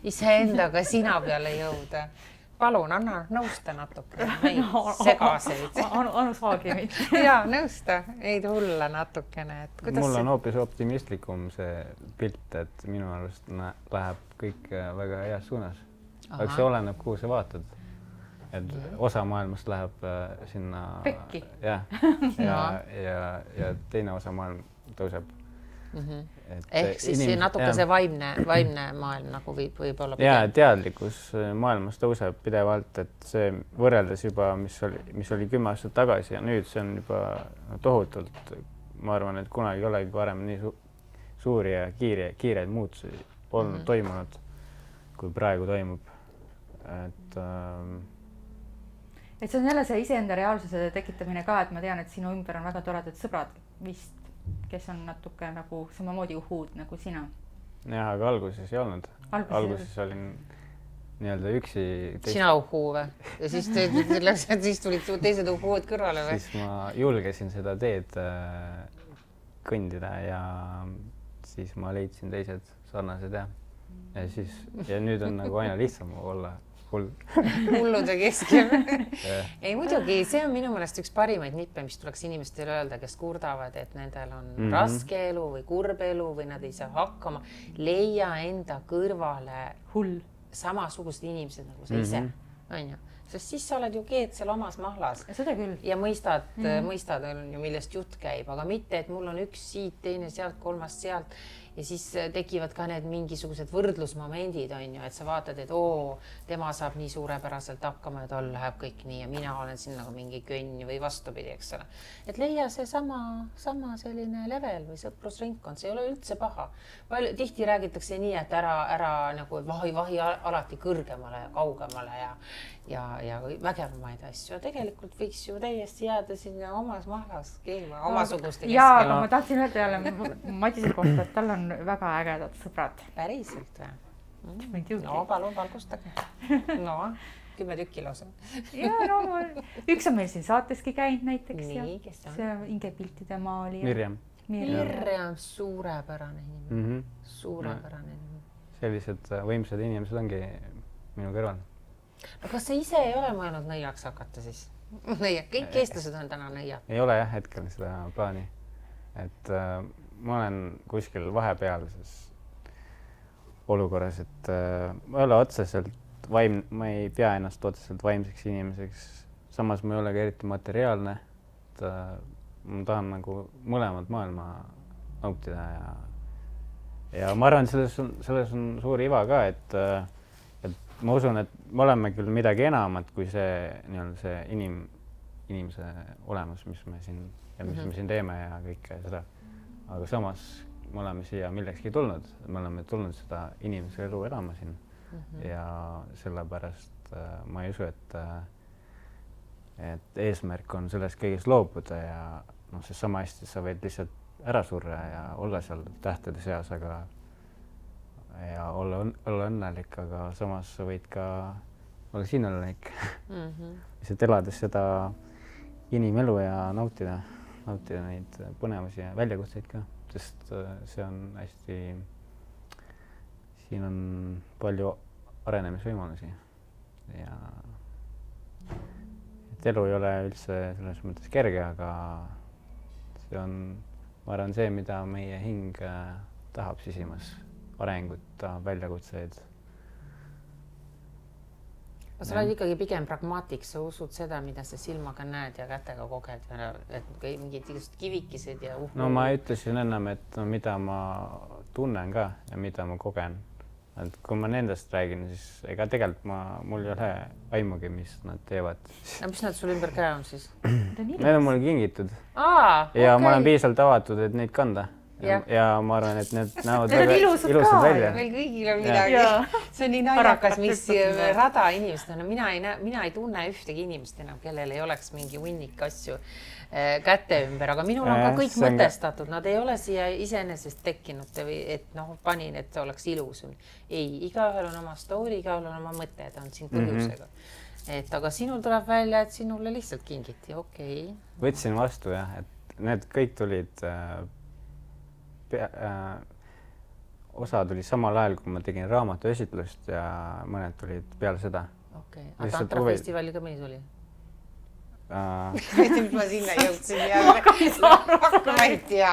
iseendaga sina peale jõuda. Palun, anna nõusta natuke meid segaseid. Anu saagi meid. Jaa, nõusta neid hulla natukene. Mul on hoopis optimistlikum see pilt, et minu arust läheb kõik väga heas suunas. Aga see oleneb, kuhu sa vaatad. Et osa maailmast läheb sinna... Pekki. Ja teine osa maailm tõuseb. Ehk siis natuke see vaimne maailm nagu võib olla pigem. Ja teadlikkus maailmas tõuseb pidevalt, et see võrreldes juba, mis oli 10 aastat tagasi ja nüüd see on juba tohutult. Ma arvan, et kunagi ei olegi varem nii suuri ja kiireid muutusi polnud toimunud, kui praegu toimub. Et see on jälle see iseenda reaalsuse tekitamine ka, et ma tean, et sinu ümber on väga toredad sõbrad vist, kes on natuke nagu samamoodi uhuud nagu sina. Jah, aga alguses ei olnud. Alguses olin nii-öelda üksi. Sina uhuu või? Ja siis tulid teised uhuud kõrvale või? Siis ma julgesin seda teed kõndida ja siis ma leidsin teised sarnased ja nüüd on nagu aina lihtsam olla hullude keskel. Ei muidugi, see on minu meelest üks parimaid nippe, mis tuleks inimestele öelda, kes kurdavad, et nendel on raske elu või kurb elu või nad ei saa hakkama. Leia enda kõrvale samasugused inimesed nagu sa ise. Sest siis sa oled ju keed seal omas mahlas. Seda küll. Ja mõistad, millest jutt käib, aga mitte, et mul on üks siit, teine sealt, kolmas sealt. Ja siis tekivad ka need mingisugused võrdlusmomendid, et sa vaatad, et tema saab nii suurepäraselt hakkama ja tal läheb kõik nii ja mina olen siin nagu mingi könn või vastupidi, eks ole. Et leia see sama selline level või sõprusringkond, see ei ole üldse paha. Tihti räägitakse nii, et ära nagu vahi alati kõrgemale ja kaugemale ja vägevamaid asju. Tegelikult võiks ju täiesti jääda sinna omas mahlas keema, omasuguste keskel. Jaa, aga ma tahtsin öelda jälle Madise kohta, et tal on väga ägedad sõbrad. Päriselt või? No, palun valgustage. No, 10 tükki lausa. Üks on meil siin saateski käinud näiteks. Nii, kes on? See on Inge piltide maali. Mirjam, suurepärane inimene. Suurepärane inimene. Sellised võimsad inimesed ongi minu kõrval. No kas sa ise ei ole mõelnud nõiaks hakata siis? Kõik eestlased on täna nõiad. Ei ole jah hetkel seda plaani. Et ma olen kuskil vahepealses olukorras, et ma ei ole otseselt ma ei pea ennast otseselt vaimseks inimeseks. Samas ma ei ole ka eriti materiaalne. Ma tahan nagu mõlemad maailma nautida ja ma arvan, selles on suur iva ka, et ma usun, et me oleme küll midagi enamat kui see nii-öelda see inimese olemus, mis me siin ja mis me siin teeme ja kõike seda. Aga samas me oleme siia millekski tulnud, me oleme tulnud seda inimese elu elama siin ja sellepärast ma ei usu, et eesmärk on sellest kõigest loobuda ja noh, see sama hästi sa võid lihtsalt ära surra ja olla seal tähtede seas, aga ja olla õnnelik, aga samas sa võid ka olla siin õnnelik. Lihtsalt elades seda inimelu ja nautida neid põnevusi ja väljakutseid ka, sest see on hästi, siin on palju arenemisvõimalusi ja et elu ei ole üldse selles mõttes kerge, aga see on, ma arvan, see, mida meie hing tahab sisimas. Arengut, väljakutseid. Sa oled ikkagi pigem pragmaatik, sa usud seda, mida sa silmaga näed ja kätega koged, et mingid kivikesed ja No ma ütlesin ennem, et no, mida ma tunnen ka ja mida ma kogen. Et kui ma nendest räägin, siis ega tegelikult mul ei ole aimugi, mis nad teevad. Ja mis nad sul ümber käe on siis? Need on mulle kingitud. Ja ma olen piisavalt avatud, et neid kanda. Ja ma arvan, et need näevad väga ilusad välja. Meil kõigil on midagi. See on nii naljakas, mis rada inimest on. Mina ei tunne ühtegi inimest enam, kellel ei oleks mingi hunnik asju käte ümber, aga minul on ka kõik mõtestatud. Nad ei ole siia iseenesest tekkinud, et panin, et oleks ilus. Ei, igaühel on oma story, igaühel on oma mõte, ta on siin põhjusega. Aga sinul tuleb välja, et sinule lihtsalt kingiti, okei. Võtsin vastu jah, et need kõik tulid osa tuli samal ajal, kui ma tegin raamatu esitlust ja mõned tulid peale seda. Okei, aga Tantra festivali ka mõni tuli? Mis ma sinna jõudsin jälle. Ma ei tea,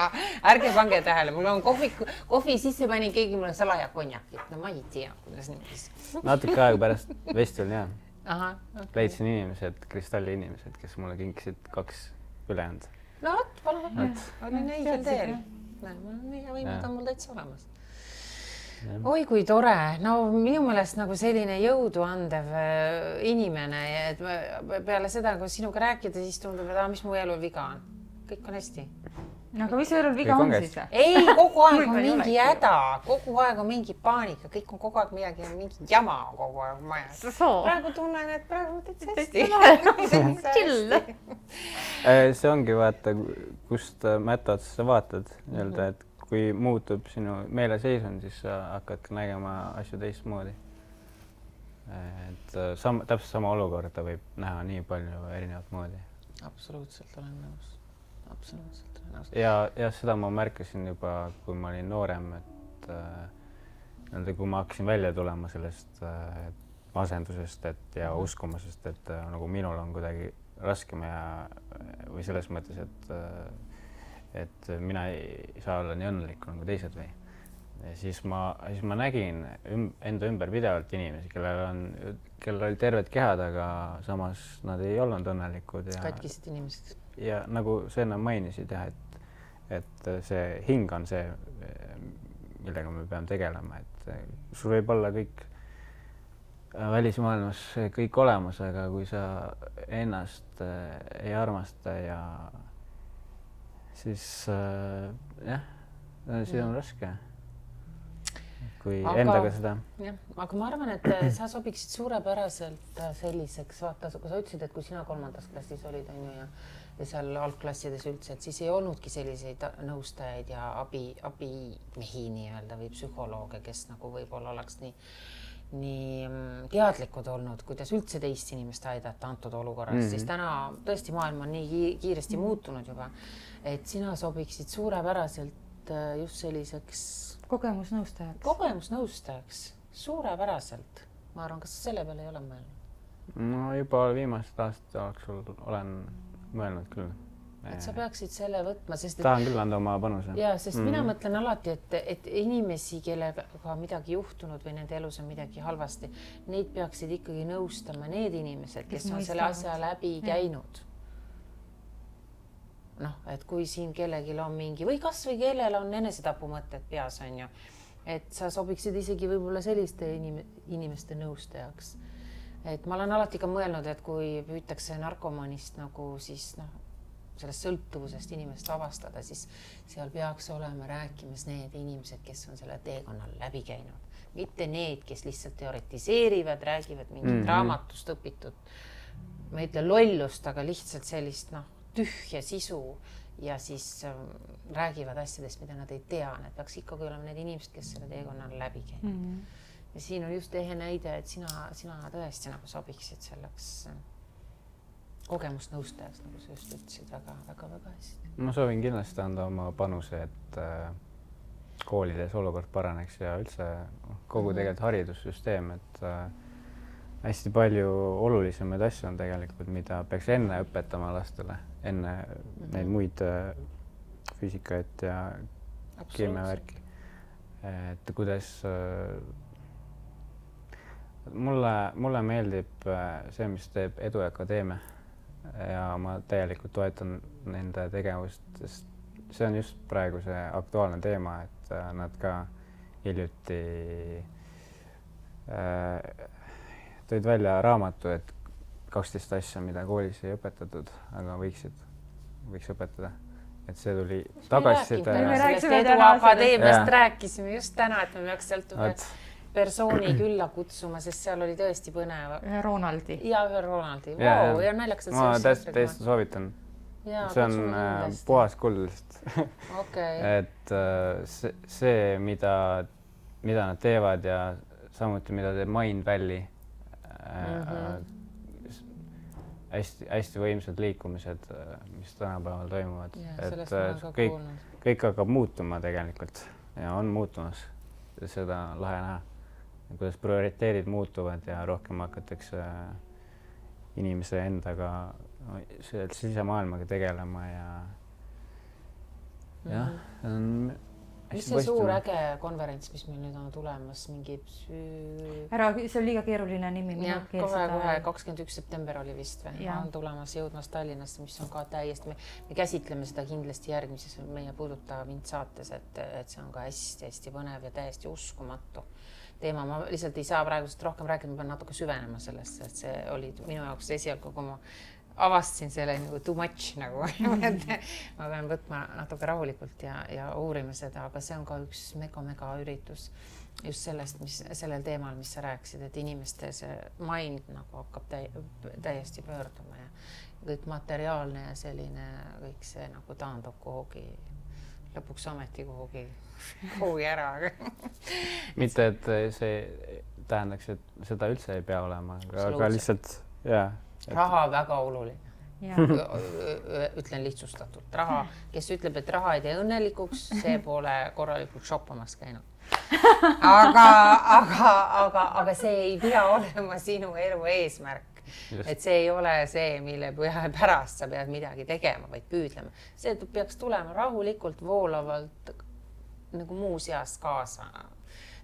ärge pange tähele, mul on kohvi sisse panin keegi mulle salaja konjakit. No ma ei tea, kuidas niimoodi. Natuke aega pärast festivali jah. Leidsin inimesed, kristalli inimesed, kes mulle kinkisid 2 ülejäänud. No vot, palun. Olin õigel teel. Võimud on mul täitsa olemas. Oi, kui tore. No minu meelest nagu selline jõudu andev inimene. Et peale seda, kui sinuga rääkida, siis tundub, et mis mu elul viga on. Kõik on hästi. Aga mis elul viga on siis? Ei, kogu aeg on mingi häda, kogu aeg on mingi paanika, kõik on kogu aeg midagi, mingi jama kogu aeg majas. Praegu tunnen, et praegu täitsa hästi. Chill. See ongi vaata, kust mätta otsa sa vaatad, et kui muutub sinu meeleseisund, siis sa hakkad ka nägema asju teistmoodi. Täpselt sama olukorda võib näha nii palju erinevat moodi. Absoluutselt olen nõus. Absoluutselt. Ja seda ma märkasin juba, kui ma olin noorem, et kui ma hakkasin välja tulema sellest asendusest ja uskumusest, et nagu minul on kuidagi raskem või selles mõttes, et mina ei saa olla nii õnnelik nagu teised või. Ja siis ma nägin enda ümber pidevalt inimesi, kellel oli terved kehad, aga samas nad ei olnud õnnelikud. Katkisid inimesed. Ja nagu sa enne mainisid, et see hing on see, millega me peame tegelema, et sul võib olla kõik välismaailmas kõik olemas, aga kui sa ennast ei armasta ja siis see on raske, kui endaga seda. Aga ma arvan, et sa sobiksid suurepäraselt selliseks, vaata, kui sa ütlesid, et kui sina 3. klassis olid ja seal algklassides üldse, et siis ei olnudki selliseid nõustajaid ja abimehi nii-öelda või psühholooge, kes nagu võib-olla oleks nii teadlikud olnud, kuidas üldse teist inimest aidata antud olukorras, siis täna tõesti maailm on nii kiiresti muutunud juba, et sina sobiksid suurepäraselt just selliseks kogemusnõustajaks, suurepäraselt. Ma arvan, kas selle peale ei ole mõelnud? No juba viimased aastad jooksul olen mõelnud küll. Et sa peaksid selle võtma, sest tahan küll anda oma panuse. Ja, sest mina mõtlen alati, et inimesi, kellega midagi juhtunud või nende elus on midagi halvasti, neid peaksid ikkagi nõustama need inimesed, kes on selle asja läbi käinud. Et kui siin kellelgi on mingi või kas või kellel on enesetapumõtted peas on ju, et sa sobiksid isegi võib-olla selliste inimeste nõustajaks. Et ma olen alati ka mõelnud, et kui püütakse narkomanist nagu siis sellest sõltuvusest inimest vabastada, siis seal peaks olema rääkimas need inimesed, kes on selle teekonnal läbi käinud. Mitte need, kes lihtsalt teoretiseerivad, räägivad mingit raamatust õpitud, ma ei ütle lollust, aga lihtsalt sellist tühja sisu ja siis räägivad asjadest, mida nad ei tea. Need peaks ikkagi olema need inimesed, kes selle teekonnal läbi käinud. Ja siin on just ehe näide, et sina tõesti nagu sobiksid selleks kogemusnõustajaks, nagu sa just ütlesid, väga hästi. Ma soovin kindlasti anda oma panuse, et koolides olukord paraneks ja üldse kogu tegelikult haridussüsteem, et hästi palju olulisemaid asju on tegelikult, mida peaks enne õpetama lastele, enne neid muid füüsikaid ja keemiavärki. Et kuidas mulle meeldib see, mis teeb Edu Akadeemia ja ma täielikult toetan nende tegevust, sest see on just praegu see aktuaalne teema, et nad ka hiljuti tõid välja raamatu, et 12 asja, mida koolis ei õpetatud, aga võiks õpetada. Et see tuli tagasiside. Me rääkisime Edu Akadeemiast, rääkisime just täna, et me peaks sealt persooni külla kutsuma, sest seal oli tõesti põnev. Ühe Ronaldi. Ja ühe Ronaldi. Wow, ja naljakas. Ma täiesti soovitan. See on puhas kuldest. Et see, mida nad teevad ja samuti, mida teeb Mind Valley, hästi võimsad liikumised, mis tänapäeval toimuvad. Et kõik hakkab muutuma tegelikult ja on muutumas. Seda lahe näha, kuidas prioriteedid muutuvad ja rohkem hakatakse inimese endaga sisemaailmaga tegelema ja mis see suur äge konverents, mis meil nüüd on tulemas, mingi see on liiga keeruline nimi. Kohe 21. september oli vist või? On tulemas jõudmas Tallinnasse, mis on ka täiesti, me käsitleme seda kindlasti järgmises meie Puuduta mind saates, et see on ka hästi põnev ja täiesti uskumatu teema. Ma lihtsalt ei saa praegust rohkem rääkida, ma pean natuke süvenema sellesse, et see oli minu jaoks esialgu, kui ma avastasin selle nagu too much nagu. Ma pean võtma natuke rahulikult ja uurima seda, aga see on ka üks mega üritus just sellest, sellel teemal, mis sa rääkisid, et inimeste see mind nagu hakkab täiesti pöörduma ja kõik materiaalne ja selline kõik see nagu taandub kuhugi, lõpuks ameti kuhugi ära. Mitte, et see tähendaks, et seda üldse ei pea olema, aga lihtsalt, raha väga oluline. Ütlen lihtsustatult. Raha, kes ütleb, et raha ei tee õnnelikuks, see pole korralikult shoppamas käinud. Aga see ei pea olema sinu elu eesmärk. Et see ei ole see, mille pärast sa pead midagi tegema, vaid püüdlema. See peaks tulema rahulikult, voolavalt nagu muu seas kaasa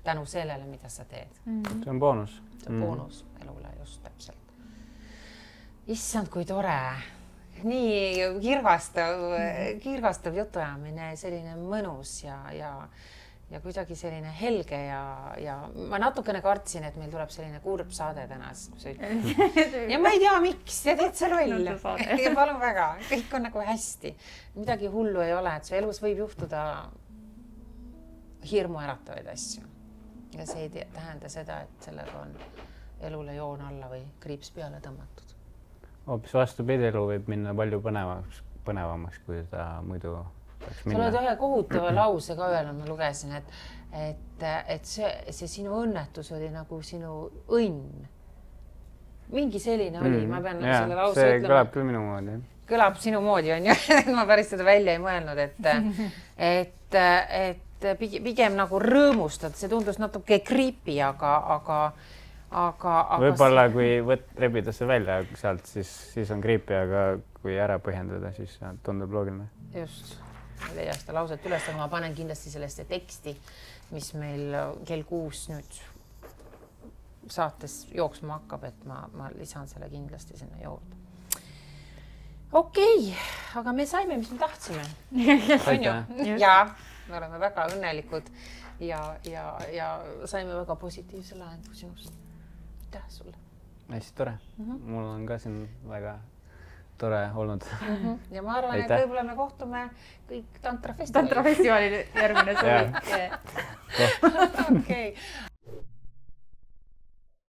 tänu sellele, mida sa teed. See on boonus. See on boonus elule just täpselt. Issand, kui tore. Nii kirgastav jutuajamine, selline mõnus ja kuidagi selline helge ja ma natukene kartsin, et meil tuleb selline kurb saade täna. Ja ma ei tea, miks, ja teed see loll. Ja palun väga, kõik on nagu hästi. Midagi hullu ei ole, et su elus võib juhtuda hirmu äratavaid asju. Ja see ei tähenda seda, et sellega on elule joon alla või kriips peale tõmmatud. Hoopis vastupidi, elu võib minna palju põnevamaks, kui ta muidu peaks minna. Sa oled ühe kohutava lause ka öelnud, ma lugesin, et see sinu õnnetus oli nagu sinu õnn. Mingi selline oli, ma pean selle lause see ütlema. kõlab küll minu moodi. Kõlab sinu moodi, on ju. Ma päris seda välja ei mõelnud, et pigem nagu rõõmustad, see tundus natuke creepy, aga võib-olla kui rebida see välja sealt, siis on creepy, aga kui ära põhjendada, siis tundub loogiline. Just, ei leia seda lauset üles, aga ma panen kindlasti sellesse teksti, mis meil kell 6 nüüd saates jooksma hakkab, et ma lisan selle kindlasti sinna juurde. Okei, aga me saime, mis me tahtsime. Ja, me oleme väga õnnelikud. ja saime väga positiivse lahendu sinust. Aitäh sulle. Hästi tore. Mul on ka siin väga tore olnud. Ja ma arvan, et võib-olla me kohtume kõik Tantra festivalil. Tantra festivalil järgmine suvi. Okei.